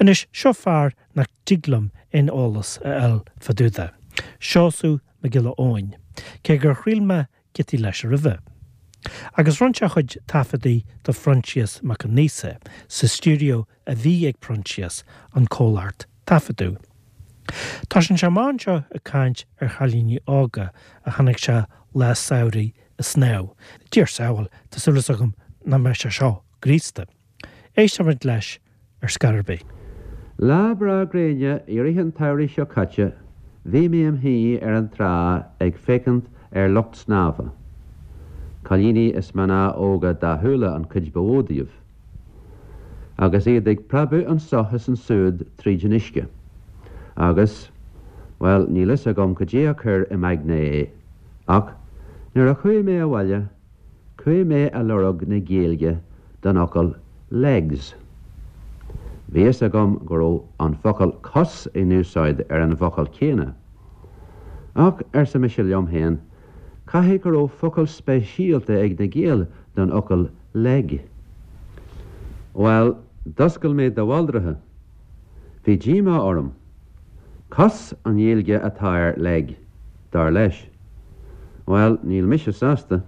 Anois, seo fear nach dtig liom aon eolas a fháil fá dtaobh de, Seosamh Mac Giolla Eoin, cé gur thriail mé giotaí leis roimhe. Agus rinne sé a chuid taifeadaí do Phroinsias Mac Aonghusa sa stiúideo a bhí ag Proinsias, an comhlacht taifeadadh. Tosaíonn sé amach anseo ag caint ar chailíní óga a chonaic sé lá samhraidh ag snámh. Dia ár sábháil, tá súil agam nach mbeidh sé seo graosta. Éistfimid leis ar scor ar bith. Lá breá gréine i rith an tsamhraidh seo caite bhí mé im shuí ar an trá ag féachaint ar lucht snámha, cailíní is mná óga dathúla an chuid ba mhó díobh, agus iad ag preabadh anso is ansúd tríd an uisce. Agus, bhuel, níl fhios agam cad é a chuir im aigne é, ach nuair a chuaigh mé abhaile, Chuaigh mé a lorg na Gaeilge don fhocal legs. Bhí fhios agam go raibh an focal cos in úsáid ar an bhfocal céanna. Ach, arsa mise liom féin, caithfidh go raibh focal speisialta ag na Gaeil don fhocal leg. Bhuel, d'oscail mé de bhaldraithe. Bhí díomá orm. Cos an Ghaeilge atá ar leg, dar leis. Bhuel, níl mise sásta.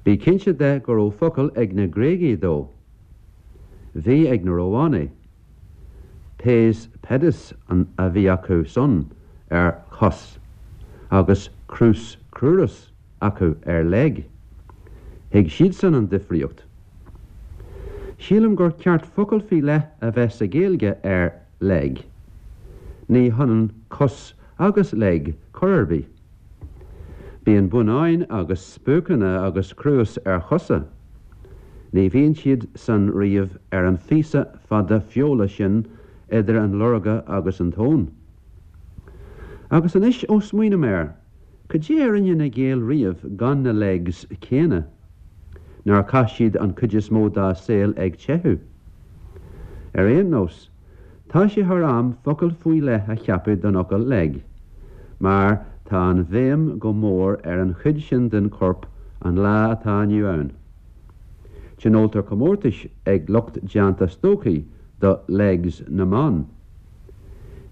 Bí cinnte de go raibh focal ag na Gréagaigh dó. Bhí ag na Rómhánaigh. Pes pedis an a bhí acu san ar chos agus crus crurus acu ar leg. Thuig siadsan an difríocht. Sílim gur ceart focal faoi leith a bheith sa Ghaeilge ar leg. Ní hionann cos agus leg chor ar bith. Bíonn bonnáin agus spuaiceanna agus cruas ar chosa. Ní bhíonn siad san riamh ar an phíosa fada feola sin idir an lorga agus an tóin. Agus anois ó smaoiním air, cad é a rinne na Gaeil riamh gan na legs céanna? Nár chaith siad an chuid is mó dá saol ag teitheadh? Ar aon nós, Tá sé thar am focal faoi leith a cheapadh don fhocal leg, mar tá an bhéim go mór ar an chuid sin den chorp an lá atá inniu ann. Tionóltar comórtais ag lucht déanta stocaí do legs na mban.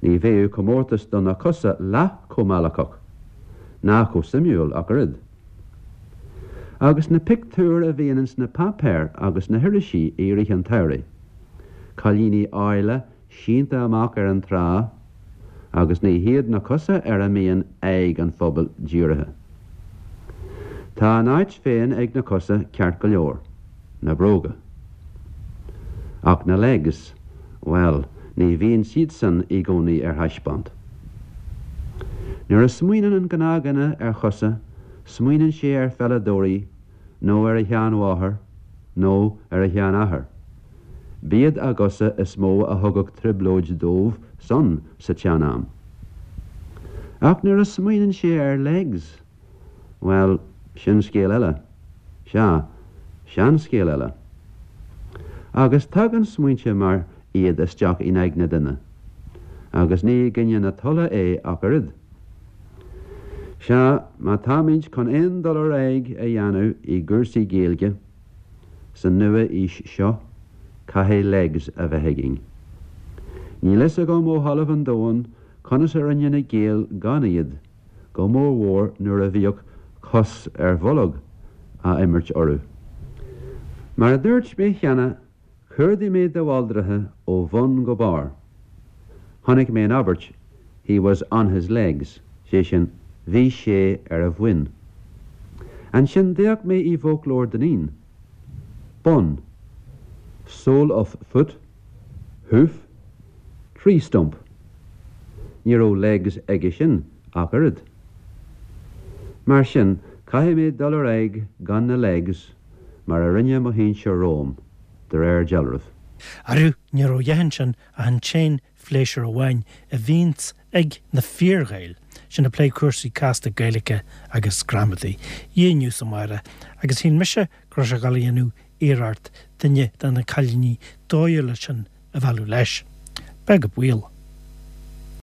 Ní bheadh comórtas do na cosa leath chomh meallacach, ná chomh suimiúil ach oiread. Agus na pictiúir a bhíonn ins na páipéir agus na hirisí i rith an tsamhraidh. Cailíní áille sínte amach ar an trá agus ní hiad na cosa ar a mbíonn aghaidh an phobail dírithe. Tá a n-áit féin ag na cosa ceart go leor, na bróga. Ach na legs, bhuel, ní bhíonn siadsan i gcónaí ar thaispeáint. Nuair a smaoineann an gnáthdhuine ar chosa, smaoineann sé ar pheileadóirí nó ar a sheanmháthair nó ar a sheanathair. B'iad a gcosa is mó a thugadh trioblóid dóibh san sa tsean-am. Ach nuair a smaoineann sé ar legs, bhuel, sin scéal eile. Sea, seanscéal eile. Agus tagann smaointe mar iad isteach in aigne duine, agus ní i gcoinne na tola é ach oiread. Sea, má táimid chun aon dul ar aghaidh a dhéanamh i gcúrsaí Gaeilge sa nua-aois seo, caithfidh legs a bheith againn. Níl fhios agam ó thalamh an domhain conas a rinne na Gaeil gan iad, go mórmhór nuair a bhíodh cos ar bholg á imirt orthu. Mar a dúirt mé cheana, Chuardaigh mé de bhaldraithe ó bhun go barr. Chonaic mé an abairt He was on his legs, sé sin, bhí sé ar a bhoinn. Ansin d'fhéach mé i bhfoclóir Dineen. Bonn. Sole of foot, hoof, tree stump. Ní raibh legs aige sin ach oiread. Mar sin, caithfidh mé dul ar aghaidh gan na legs mar a rinne mo shinsir romham, de réir dealraimh. Arú, ní raibh a dhath ansin ach an t-aon phléisiúr amháin a bhíonns ag na fíor-Ghaeil, sin ag plé cúrsaí casta Gaeilge agus gramadaí, inniu is amárach, agus shíl mise go raibh sé ag dul a dhéanamh iarracht duine de na cailíní dóighiúla sin a mhealladh leis. Beag an baol.